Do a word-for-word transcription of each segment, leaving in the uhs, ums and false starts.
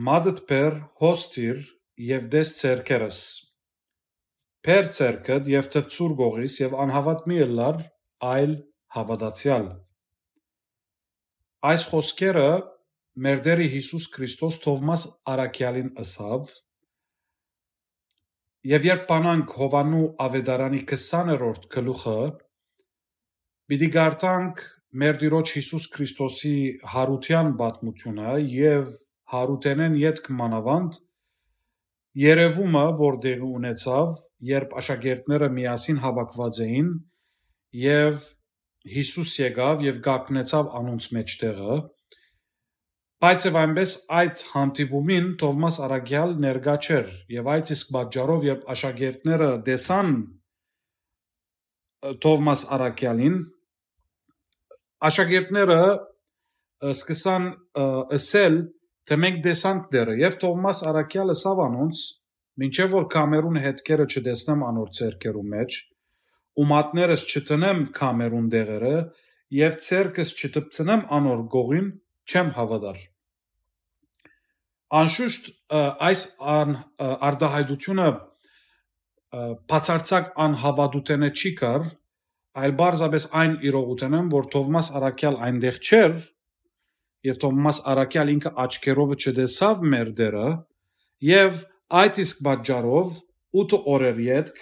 Մատդ բեր, հոս դիր եւ տես ձեռքերս։ Բեր ձեռքդ եւ դպցուր կողիս եւ անհաւատ մի ըլլար, այլ հաւատացեալ։ Այս խօսքերը մեր Տէրը Յիսուս Քրիստոս Թովմաս Առաքեալին ըսաւ, եւ երբ բանանք Յովհաննու Աւետարանի քսաներորդ գլուխը, պիտի կարդանք մեր Տիրոջ Յիսուս Քրիստոսի յարութեան պատմութիւնը եւ յարութենէն ետք մանաւանդ երեւումը, որ տեղի ունեցաւ, երբ աշակերտները միասին հաւաքուած էին եւ Յիսուս եկաւ եւ կանգնեցաւ անոնց մէջտեղը, բայց եւ այնպէս այդ հանդիպումին Թովմաս Առաքեալ ներկայ չէր, եւ այդ իսկ պատճառով, երբ աշակերտները տեսան, ը, Թովմաս Առաքեալին, աշակերտները, ը, սկսան, ը, ըսել, թէ մենք տեսանք Տէրը, եւ Թովմաս Առաքեալ ըսաւ անոնց, մինչեւ որ քամերուն հետքերը չտեսնեմ անոր ձեռքերու մէջ, ու մատներս չտնեմ քամերուն դեղերը, եւ ձեռքս չտպցնեմ անոր կողին, չեմ հաւատար։ Անշուշտ, ը, այս ան-, ը, արտահայտությունը, ը, բացարձակ անհաւատութենէ չի կար, այլ պարզապէս այն իրողութենէն, որ Թովմաս Առաքեալ այնտեղ չէր, եւ Թովմաս Առաքեալ ինքը աչքերովը չտեսաւ մեր Տէրը, եւ այդ իսկ պատճառով ութը օրեր ետք,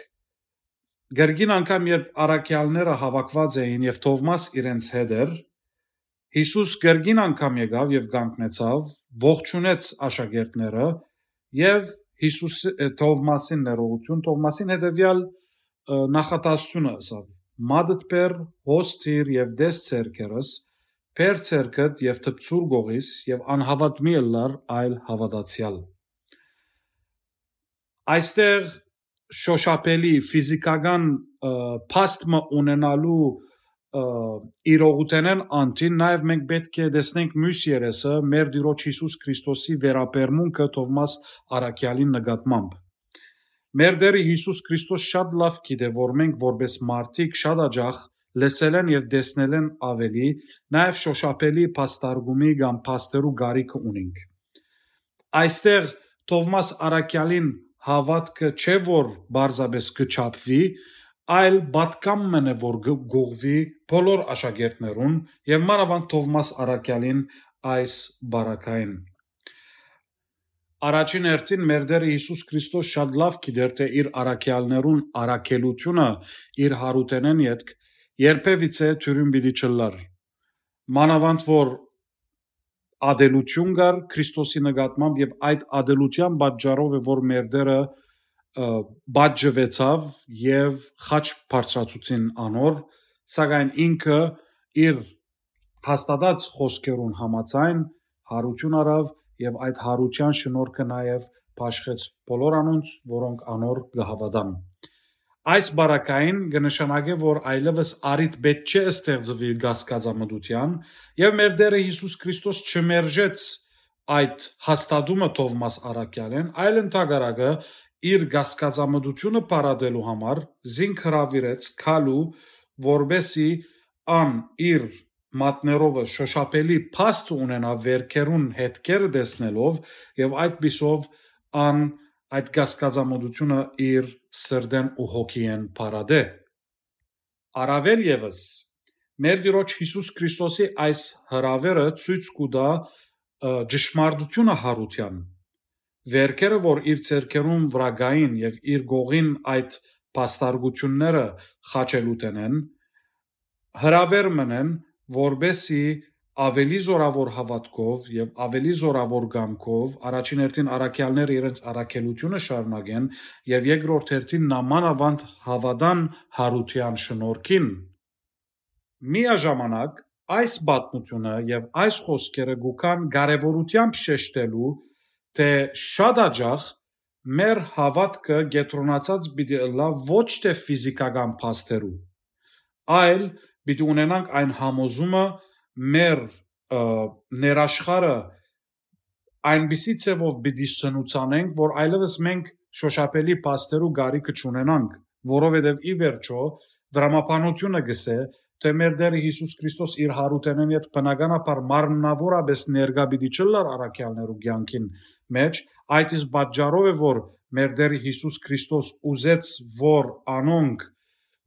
կրկին անգամ երբ առաքեալները հաւաքուած էին եւ Թովմաս իրենց հետ էր, Յիսուս կրկին անգամ եկաւ եւ կանգնեցաւ, ողջունեց աշակերտները եւ Յիսուս, ը, Թովմասին ներողություն, Թովմասին հետեւեալ, ը, նախատասությունը ըսաւ. «Մատդ բեր, հոս դիր եւ տես ձեռքերս, բեր ձեռքդ եւ դպցուր կողիս եւ անհաւատ մի ըլլար, այլ հաւատացեալ»։ Այստեղ շոշափելի ֆիզիքական, ը, փաստ մը ունենալու, ը, իրողութենէն անդին, նաեւ մենք պէտք է տեսնենք միւս երեսը, մեր Տիրոջ Յիսուս Քրիստոսի վերաբերմունքը Թովմաս Առաքեալին նկատմամբ։ Մեր Տէրը Յիսուս Քրիստոս շատ լաւ գիտէ, որ մենք որպէս մարդիկ շատ աջախ լսելէն եւ տեսնելէն աւելի, նաեւ շոշափելի փաստարկումի կամ փաստերու կարիքը ունենք։ Այստեղ Թովմաս Առաքեալին հաւատքը չէ, որ պարզապէս կը չափուի, այլ պատգամ մըն է, որ կը գուղուի բոլոր աշակերտներուն եւ մանաւանդ Թովմաս Առաքեալին այս բարակային։ Առաջին հերթին մեր Տէրը Յիսուս Քրիստոս շատ լաւ գիտեր, թէ իր առաքեալներուն առաքելութիւնը իր յարութենէն ետք երբեւիցէ դիւրին պիտի չըլլար։ Մանաւանդ որ ատելութիւն կար Քրիստոսի նկատմամբ եւ այդ ատելութեան պատճառով է, որ մեր Տէրը, ը, պատժուեցաւ եւ խաչ բարձրացուցին անոր, սակայն ինքը իր հաստատած խօսքերուն համաձայն յարութիւն առաւ եւ այդ յարութեան շնորհքը նաեւ բաշխեց բոլոր անոնց, որոնք անոր կը հաւատան։ Այս բարակային կը նշանակէ, որ այլեւս առիթ պէտք չէ ստեղծուի կասկածամտութեան, եւ մեր Տէրը Յիսուս Քրիստոս չմերժեց այդ հաստատումը Թովմաս Առաքեալէն, այլ ընդհակառակը իր կասկածամտութիւնը փարատելու համար զինք հրաւիրեց քալու, որպէսի ան իր մատներովը շոշափելի փաստ ունենայ վերքերուն հետքերը տեսնելով, եւ այդպիսով ան այդ կասկածամտութիւնը իր սրտէն ու հոգիէն փարատէ։ Առաւել եւս, մեր Տիրոջ Յիսուս Քրիստոսի այս հրաւերը ցոյց կու տայ, ը, ճշմարտութիւնը յարութեան։ Վերքերը, որ իր ձեռքերուն վրայ կային եւ իր կողին այդ փաստարկութիւնները խաչելութենէն, հրաւեր մըն են, որպէսի աւելի զօրաւոր հաւատքով եւ աւելի զօրաւոր կամքով առաջին հերթին առաքեալները իրենց առաքելութիւնը շարունակեն եւ երկրորդ հերթին նամանաւանդ հաւատան յարութեան շնորհքին։ Միաժամանակ այս պատմութիւնը եւ այս խօսքերը կու գան կարեւորութեամբ շեշտելու, թէ շատ աջախ մեր հաւատքը կեդրոնացած պիտի ըլլայ ոչ թէ ֆիզիքական փաստերու, այլ պիտի ունենանք այն համոզումը մեր, ը, ներաշխարը այնպիսի ձևով պիտի սնուցանենք, որ այլեւս մենք շոշափելի փաստերու կարիքը չունենանք, որովհետեւ ի վերջոյ դրամաբանութիւնը կ'ըսէ, թէ մեր Տէրը Յիսուս Քրիստոս իր յարութենէն յետ բնականաբար մարմնաւորապէս ներկայ պիտի չըլլար առաքեալներու կեանքին մէջ, այդ իսկ պատճառով է, որ մեր Տէրը Յիսուս Քրիստոս ուզեց, որ անոնք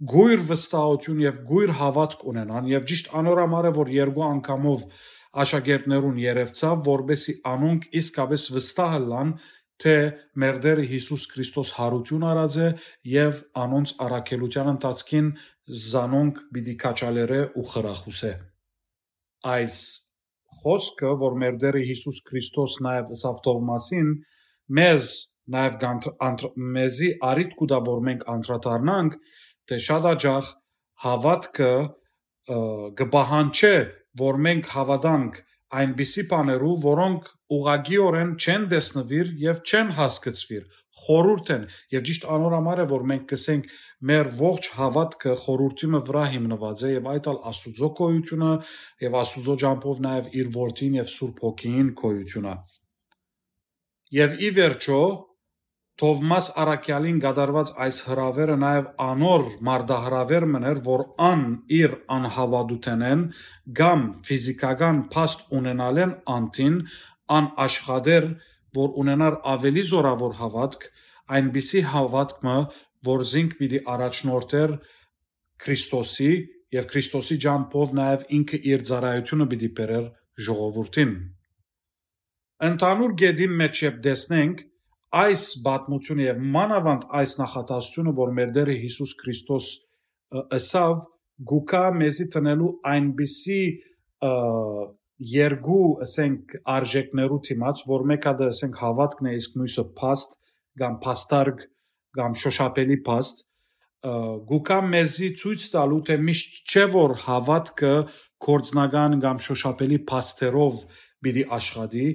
գոյր վստահութիւն եւ գոյր հաւատք ունենան, եւ ճիշտ անոր համար է, որ երկու անգամով աշակերտներուն երեւցաւ, որպէսզի անոնք իսկապէս վստահ ըլլան, թէ մեր Տէրը Յիսուս Քրիստոս յարութիւն առած է եւ անոնց առաքելութեան ընթացքին զանոնք պիտի քաջալերէ ու խրախուսէ։ Այս խօսքը, որ մեր Տէրը Յիսուս Քրիստոս նաեւ ըսաւ Թովմասին, մեզ նաեւ կանթ-, անթ-, մեզի առիթ կու տայ, որ մենք անդրադառնանք, թէ շատ աջախ հաւատքը, ը, կը պահանջէ, որ մենք հաւատանք այնպիսի բաներու, որոնք ուղղակիօրէն չեն տեսնուիր եւ չեն հասկցուիր, խորհուրդ են, եւ ճիշտ անոր համար է, որ մենք կ'ըսենք, մեր ողջ հաւատքը խորհուրդի մը վրայ հիմնուած է, եւ այդ ալ Աստուծոյ գոյութիւնը, եւ Աստուծոյ ճամբով նաեւ իր Որդին եւ Սուրբ Հոգիին գոյութիւնը։ Եւ ի վերջոյ, Թովմաս առաքեալին կատարուած այս հրաւերը նաեւ անոր մարտահրաւեր մըն էր, որ ան իր անհաւատութենէն կամ ֆիզիքական փաստ ունենալէն անդին, ան աշխատէր, որ ունենար աւելի զօրաւոր հաւատք, այնպիսի հաւատք մը, որ զինք պիտի առաջնորդէր Քրիստոսի եւ Քրիստոսի ճամբով նաեւ ինքը իր ծառայութիւնը պիտի բերէր ժողովուրդին։ Ընդհանուր կետին մէջ երբ տեսնենք այս պատմութիւնը եւ մանաւանդ այս նախադասութիւնը, որ մեր Տէրը Յիսուս Քրիստոս, ը, ըսաւ, գուկա մեզի տնելու այնպիսի, ը, երկու, ասենք, արժեքներու դիմաց, որ մէկը դա, ասենք, հաւատքն է, իսկ միւսը փաստ կամ փաստարկ կամ շոշափելի փաստ, ը, գուկա մեզի ցոյց տալու, թէ միշտ չէ, որ հաւատքը գործնական կամ շոշափելի փաստերով պիտի աշխատի,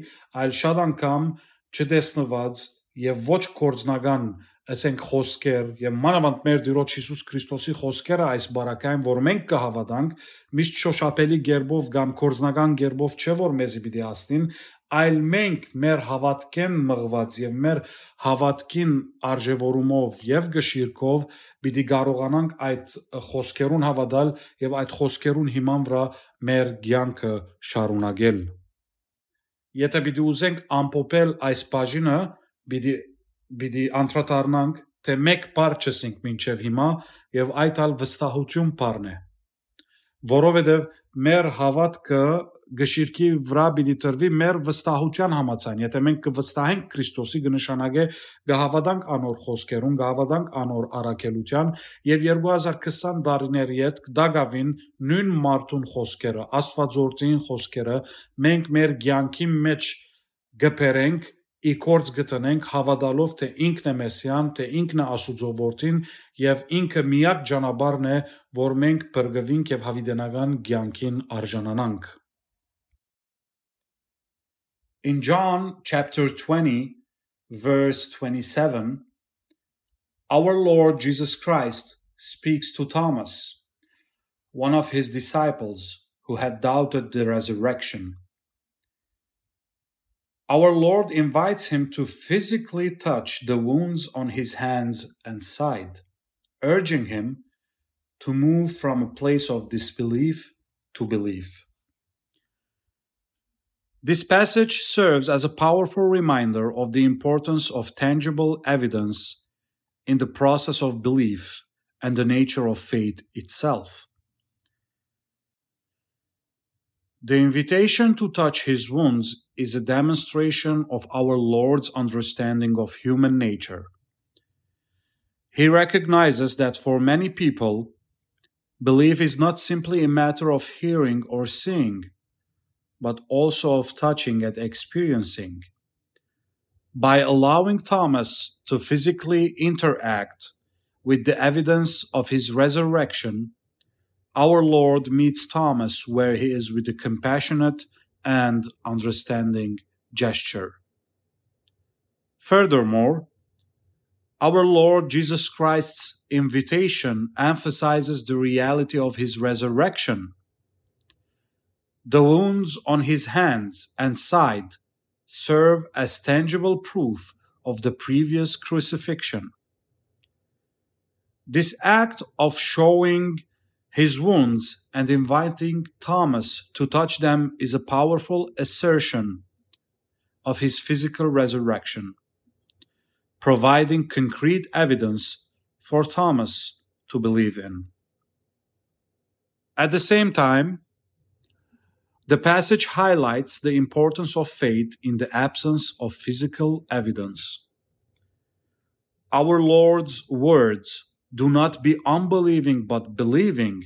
այլ շատ անգամ չտեսնուած եւ ոչ գործնական, ասենք, խօսքեր, եւ մանաւանդ մեր Տիրոջ Յիսուս Քրիստոսի խօսքերը այս բարակային, որ մենք կը հաւատանք, միշտ շոշափելի կերպով կամ գործնական կերպով չէ, որ մեզի պիտի հասնին, այլ մենք մեր հաւատքէն մղուած եւ մեր հաւատքին արժեւորումով եւ կշիռքով պիտի կարողանանք այդ խօսքերուն հաւատալ եւ այդ խօսքերուն հիման վրայ մեր կեանքը շարունակել։ Եթէ պիտի ուզենք ամփոփել այս բաժինը, պիտի, պիտի անդրադառնանք, թէ մէկ բառ չըսինք մինչեւ հիմա, եւ այդ ալ վստահութիւն բառն է, որովհետեւ մեր հաւատքը կշիռքի վրայ պիտի տրուի մեր վստահութեան համաձայն։ Եթէ մենք կը վստահենք Քրիստոսի, կը նշանակէ կը հաւատանք անոր խօսքերուն, կը հաւատանք անոր առաքելութեան, եւ երկու հազար քսան տարիներ ետք տակաւին նոյն մարդուն խօսքերը, Աստուածորդին խօսքերը մենք մեր կեանքին մէջ կը բերենք, ի գործ կը դնենք, հաւատալով թէ ինքն է Մեսիան, թէ ինքն է Աստուծոյ Որդին եւ ինքը միակ ճանապարհն է, որ մենք փրկուինք եւ յաւիտենական կեանքին արժանանանք։ In John chapter twenty, verse twenty-seven, our Lord Jesus Christ speaks to Thomas, one of his disciples who had doubted the resurrection. Our Lord invites him to physically touch the wounds on his hands and side, urging him to move from a place of disbelief to belief. This passage serves as a powerful reminder of the importance of tangible evidence in the process of belief and the nature of faith itself. The invitation to touch his wounds is a demonstration of our Lord's understanding of human nature. He recognizes that for many people, belief is not simply a matter of hearing or seeing, but also of touching and experiencing. By allowing Thomas to physically interact with the evidence of his resurrection, our Lord meets Thomas where he is with a compassionate and understanding gesture. Furthermore, our Lord Jesus Christ's invitation emphasizes the reality of his resurrection. The wounds on his hands and side serve as tangible proof of the previous crucifixion. This act of showing His wounds and inviting Thomas to touch them is a powerful assertion of his physical resurrection, providing concrete evidence for Thomas to believe in. At the same time, the passage highlights the importance of faith in the absence of physical evidence. Our Lord's words, "Do not be unbelieving, but believing,"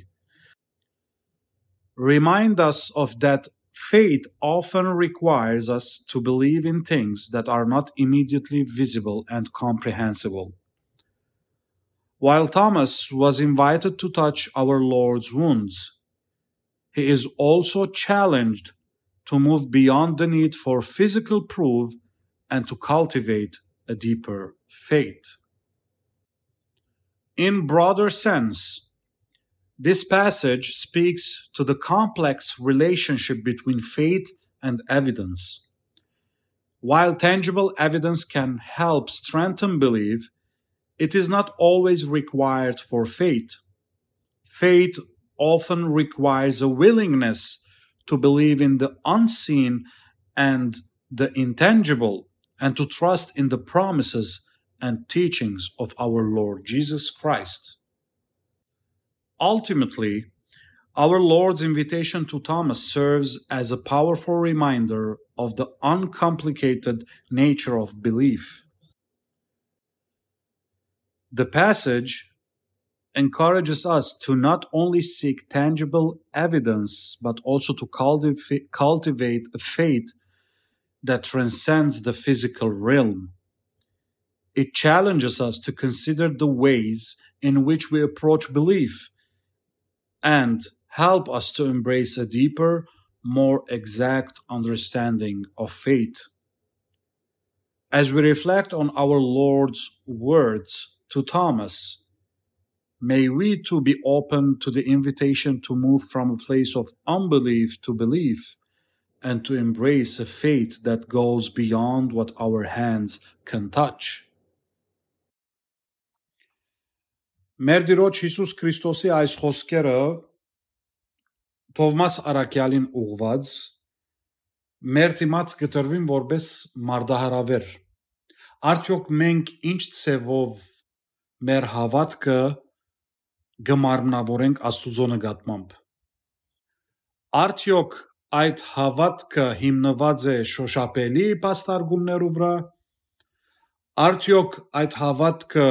remind us of that faith often requires us to believe in things that are not immediately visible and comprehensible. While Thomas was invited to touch our Lord's wounds, he is also challenged to move beyond the need for physical proof and to cultivate a deeper faith. In broader sense, this passage speaks to the complex relationship between faith and evidence. While tangible evidence can help strengthen belief, it is not always required for faith. Faith often requires a willingness to believe in the unseen and the intangible, and to trust in the promises and teachings of our Lord Jesus Christ. Ultimately, our Lord's invitation to Thomas serves as a powerful reminder of the uncomplicated nature of belief. The passage encourages us to not only seek tangible evidence, but also to cultiv-, cultivate a faith that transcends the physical realm. It challenges us to consider the ways in which we approach belief and help us to embrace a deeper, more exact understanding of faith. As we reflect on our Lord's words to Thomas, may we too be open to the invitation to move from a place of unbelief to belief and to embrace a faith that goes beyond what our hands can touch. Մեր Տիրոջ Յիսուս Քրիստոսի այս խոսքերը Թովմաս Առաքեալին ուղղված մեր դիմաց կտրուին որպես մարտահրավեր։ Արդյոք մենք ինչ ձևով մեր հաւատքը կը մարմնավորենք Աստուծոյ նկատմամբ։ Արդյոք այդ հաւատքը հիմնուած է շոշափելի փաստարկումներու վրայ։ Արդյոք այդ հաւատքը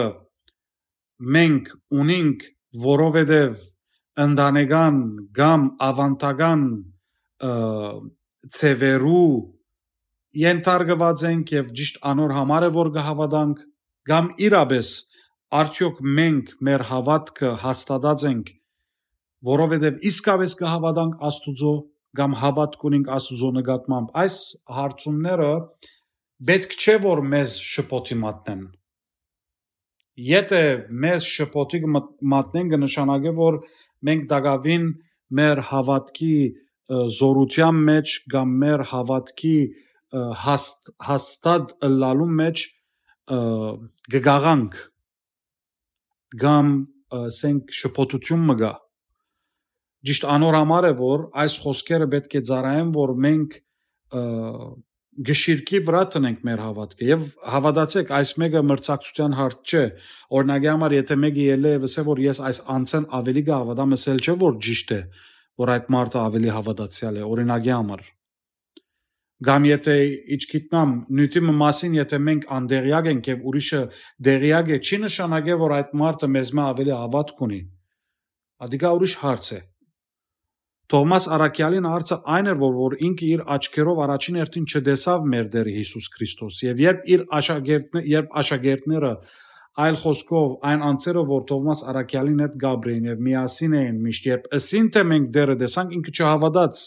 մենք ունինք, որովհետև ընտանեկան կամ ավանդական, ը, ձևերու ենթարկուած ենք եւ ճիշտ անոր համար է, որ կը հաւատանք, կամ իրապէս արդյոք մենք մեր հաւատքը հաստատած ենք, որովհետև իսկապէս կը հաւատանք Աստուծոյ, կամ հաւատք ունենք Աստուծոյ նկատմամբ։ Այս հարցումները պէտք չէ, որ մեզ շփոթի մատնեն։ Եթէ մեզ շփոթի կը մտ-, մատնեն, կը նշանակէ, որ մենք տակաւին մեր հաւատքի, ը, զօրութեան մէջ կամ մեր հաւատքի, ը, հաստ-, հաստատ ըլլալուն մէջ, ը, կը գաղանք կամ, ը, ասենք, շփոթութիւն մը կայ։ Ճիշտ անոր համար է, որ այս խոսքերը պէտք է ծառայեն, որ մենք, ը, գշիրքի վրայ տնենք մեր հաւատքը։ Եւ հաւատացէք, այս մէկը մրցակցութեան հարց չէ։ Օրինակի համար, եթէ մէկը ելլէ եւ ըսէ, որ ես այս անձէն աւելի կը հաւատամ, ըսել չէ, որ ճիշտ է, որ այդ մարդը աւելի հաւատացեալ է, օրինակի համար։ Կամ եթէ, իչքիտնամ, նիւթի մը մասին, եթէ մենք անդեղյակ ենք եւ ուրիշը դեղյակ է, չի նշանակէ, որ այդ մարդը մեզմէ աւելի հաւատք ունի։ Ադիկա ուրիշ հարց է։ Թովմաս Առաքեալին հարցը այն էր, որ, որ ինքը իր աչքերով առաջին հերթին չտեսաւ մեր Տեր Յիսուս Քրիստոս։ Եւ երբ իր աշակերտն-, երբ աշակերտները, այլ խոսքով, այն անձերը, որ Թովմաս Առաքեալին հետ կապրեին եւ միասին էին միշտ, երբ ըսին, թէ մենք Տերը տեսանք, ինքը չհաւատաց։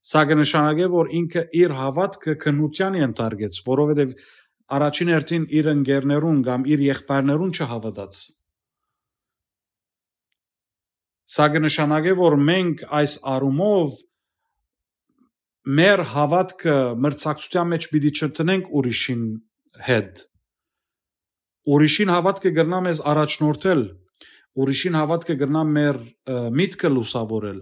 Սա կը նշանակէ, որ ինքը իր հաւատքը քննութեան ենթարկեց, որովհետեւ առաջին հերթին իր ընկերներուն կամ իր եղբայրներուն չհաւատաց։ Սա կը նշանակէ, որ մենք այս առումով մեր հաւատքը մրցակցութեան մէջ պիտի չտնենք ուրիշին հետ։ Ուրիշին հաւատքը կրնայ մեզ առաջնորդել, Ուրիշին հաւատքը կրնայ մեր, ը, միտքը լուսաւորել,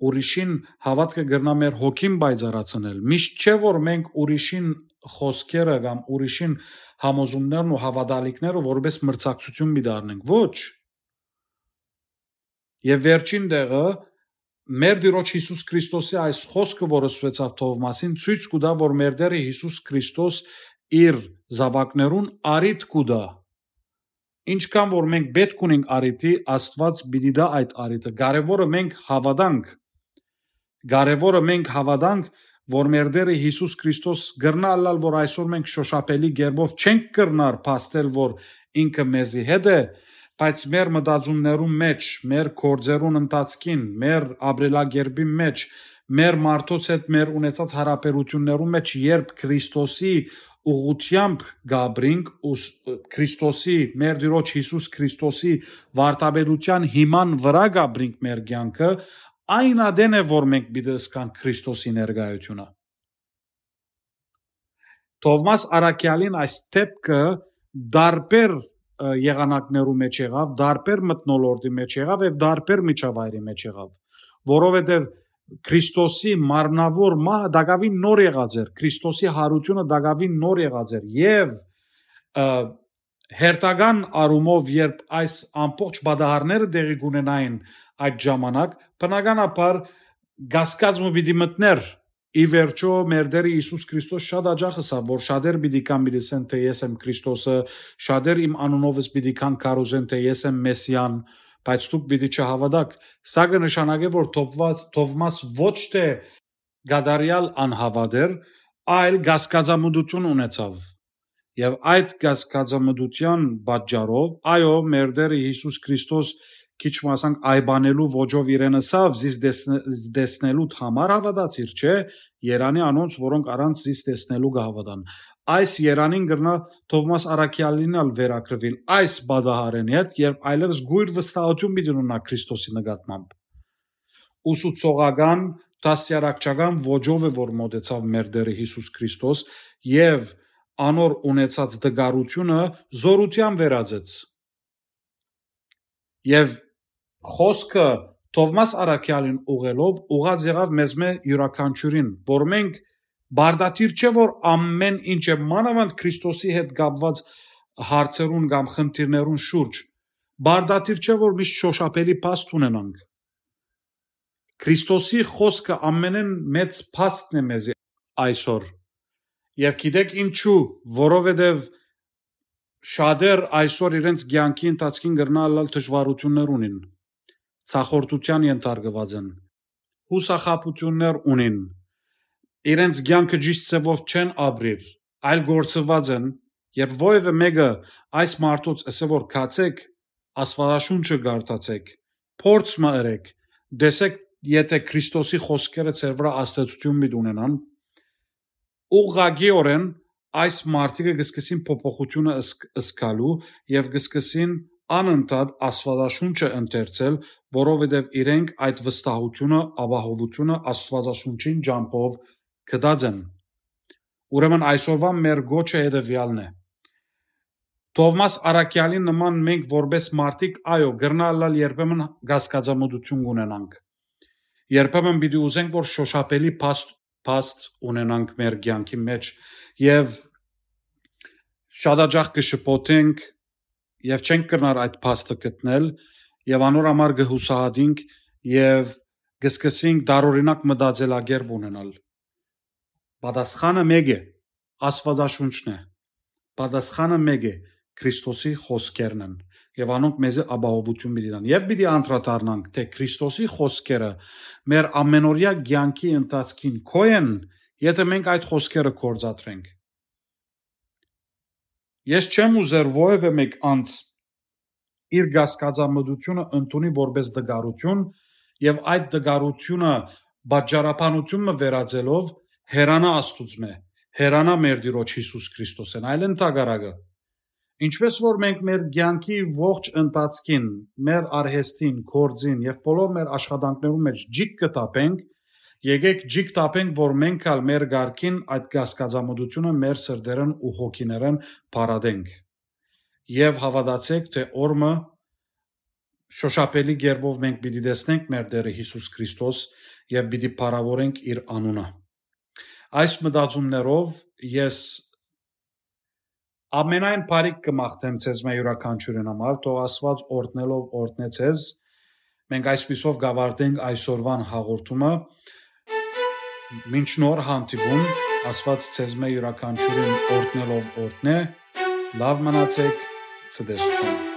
ուրիշին հաւատքը կրնայ մեր հոգին պայծառացնել։ Միշտ չէ, որ մենք ուրիշին խօսքերը կամ ուրիշին համոզումներն ու հաւատալիքները որպէս մրցակցութիւն պիտի առնենք։ Ոչ։ Եւ վերջին տեղը, մեր Տիրոջ Յիսուս Քրիստոսի այս խօսքը, որ ըսուեցաւ Թովմասին, ցոյց կու տայ, որ մեր Տէրը Յիսուս Քրիստոս իր զաւակներուն առիթ կու տայ։ Ինչքան որ մենք պէտք ունենք առիթի, Աստուած պիտի տայ այդ առիթը։ Կարեւորը մենք հաւատանք։ Կարեւորը մենք հաւատանք, որ մեր Տէրը Յիսուս Քրիստոս կրնայ ըլլալ, որ այսօր մենք շոշափելի կերպով չենք կրնար փաստել, որ ինքը մեզի հետ է, բայց մեր մտածումներուն մէջ, մեր գործերուն ընթացքին, մեր ապրելակերպին մէջ, մեր մարդոց հետ մեր ունեցած յարաբերութիւններուն մէջ, երբ Քրիստոսի ուղղութեամբ կ'ապրինք, ու ս-, Քրիստոսի, մեր Տիրոջ Յիսուս Քրիստոսի վարդապետութեան հիման վրայ կ'ապրինք մեր կեանքը, այն ատեն է, որ մենք պիտի զգանք Քրիստոսի ներկայութիւնը։ Թովմաս Առաքեալին այս դէպքը տարբեր, ը, եղանակներու մէջ եղաւ, տարբեր մթնոլորտի մէջ եղաւ եւ տարբեր միջավայրի մէջ եղաւ, որովհետեւ Քրիստոսի մարմնաւոր մահը տակաւին նոր եղած էր, Քրիստոսի յարութիւնը տակաւին նոր եղած էր եւ, ը, հերթական առումով, երբ այս ամբողջ պատահարները տեղի կունենային այդ ժամանակ, բնականաբար կասկած մը պիտի մտնէր։ Ի վերջո, մեր Տէրը Յիսուս Քրիստոս շատ յաճախ ըսաւ, որ շատեր պիտի կան, պիտի ասեն, թէ ես եմ Քրիստոսը, շատեր իմ անունովս պիտի կան, քարոզեն, թէ ես եմ Մեսիան, բայց դուք պիտի չհաւատաք։ Սա կը նշանակէ, որ Թովմաս, Թովմաս ոչ թէ կատարեալ անհաւատ էր, այլ կասկածամտութիւն ունեցաւ։ Եւ այդ կասկածամտութեան պատճառով, այո, մեր Տէրը Յիսուս Քրիստոս քիչ մը ասանք այբանելու ոճով իրեն ըսաւ, «Զիս տեսնե-, տեսնելուդ համար հաւատացիր, չէ՞, երանի անոնց, որոնք առանց զիս տեսնելու կը հաւատան»։ Այս երանին կրնայ Թովմաս Առաքեալին ալ վերագրուիլ այս պատահարէն հետ, երբ այլեւս գոյր վստահութիւն պիտի ունենայ Քրիստոսի նկատմամբ։ Ուսուցողական, դաստիարակչական ոճով է, որ մօտեցաւ մեր Տէրը Յիսուս Քրիստոս եւ անոր ունեցած տկարութիւնը զօրութեան վերածեց։ Եւ խօսքը Թովմաս Առաքեալին ուղղելով ուղղած եղաւ մեզմէ իւրաքանչիւրին, որ մենք պարտադիր չէ, որ ամէն ինչ է, մանաւանդ Քրիստոսի հետ կապուած հարցերուն կամ խնդիրներուն շուրջ, պարտադիր չէ, որ միշտ շոշափելի փաստ ունենանք։ Քրիստոսի խօսքը ամենէն մեծ փաստն է մեզի այսօր։ Եւ գիտեք ինչու, որովհետեւ շատեր այսօր իրենց կեանքի ընթացքին կրնան ըլլալ դժուարութիւններ ունին, ցախորդութեան ենթարկուած են, յուսախաբութիւններ ունին, իրենց կեանքը ճիշտ ձեւով չեն ապրիր, այլ գործուած են, երբ որեւէ մէկը այս մարդոց ըսէ որ գացեք, Աստուածաշունչը կարդացեք, փորձ մը ըրեք, տեսեք, եթէ Քրիստոսի խօսքերը ձեր վրայ ազդեցութիւն պիտի ունենան, ուղղակիօրէն այս մարդիկը կը սկսին փոփոխութիւնը ըսկ-, ըսկալու եւ կը սկսին անընդհատ Աստուածաշունչը ընթերցել, որովհետեւ իրենք այդ վստահութիւնը, ապահովութիւնը Աստուածաշունչին ճամբով գտած են։ Ուրեմն այսօրվան մեր գոչը հետեւեալն է։ Թովմաս Առաքեալին նման մենք որպես մարդիկ, այո, կրնայ ըլլալ երբեմն կասկածամտութիւն կունենանք։ Երբեմն պիտի ուզենք, որ շոշափելի փաստ, փաստ ունենանք մեր կեանքի մէջ եւ շատ յաճախ կը շփոթենք եւ չենք կրնար այդ փաստը գտնել եւ անոր համար կը յուսահատենք եւ կը սկսենք տարօրինակ մտածելակերպ ունենալ։ Պատասխանը մէկ է, Աստուածաշունչն է։ Պատասխանը մէկ է, Քրիստոսի խօսքերն են եւ անոնք մեզի ապահովութիւն պիտի տան։ Եւ պիտի անդրադառնանք, թէ Քրիստոսի խօսքերը մեր ամենօրեայ կեանքի ընթացքին քոյ են, եթէ մենք այդ խօսքերը գործադրենք։ Ես չեմ ուզեր որեւէ մէկ անձ իր կասկածամտութիւնը ընդունի որպես տկարութիւն եւ այդ տկարութիւնը պատճառաբանութիւն մը վերածելով հեռանայ Աստուծմէ, հեռանայ մեր Տիրոջ Յիսուս Քրիստոսէն, այլ ընդհակառակը։ Ինչպէս որ մենք մեր կեանքի ողջ ընթացքին, մեր արհեստին, գործին եւ բոլոր մեր աշխատանքներուն մէջ ջիկ կը թափենք, եկեք ջիկ թափենք, որ մենք ալ մեր կարգին այդ կասկածամտութիւնը մեր սրտերէն ու հոգիներէն փարատենք։ Եւ հաւատացէք, թէ օր մը շոշափելի կերպով մենք պիտի տեսնենք մեր Տէրը Յիսուս Քրիստոս եւ պիտի փառաւորենք իր անունը։ Այս մտածումներով ես ամենայն բարիք կը մաղթեմ ձեզմէ յուրաքանչիւրին համար, թող Աստուած օրհնելով օրհնէ ձեզ։ Մենք այսպիսով կավարտենք այսօրվան հաղորդումը։ Մինչ նոր հանդիպում, Աստուած ձեզմէ յուրաքանչիւրին օրհնելով օրհնէ, լաւ մնացէք, ցտեսութիւն։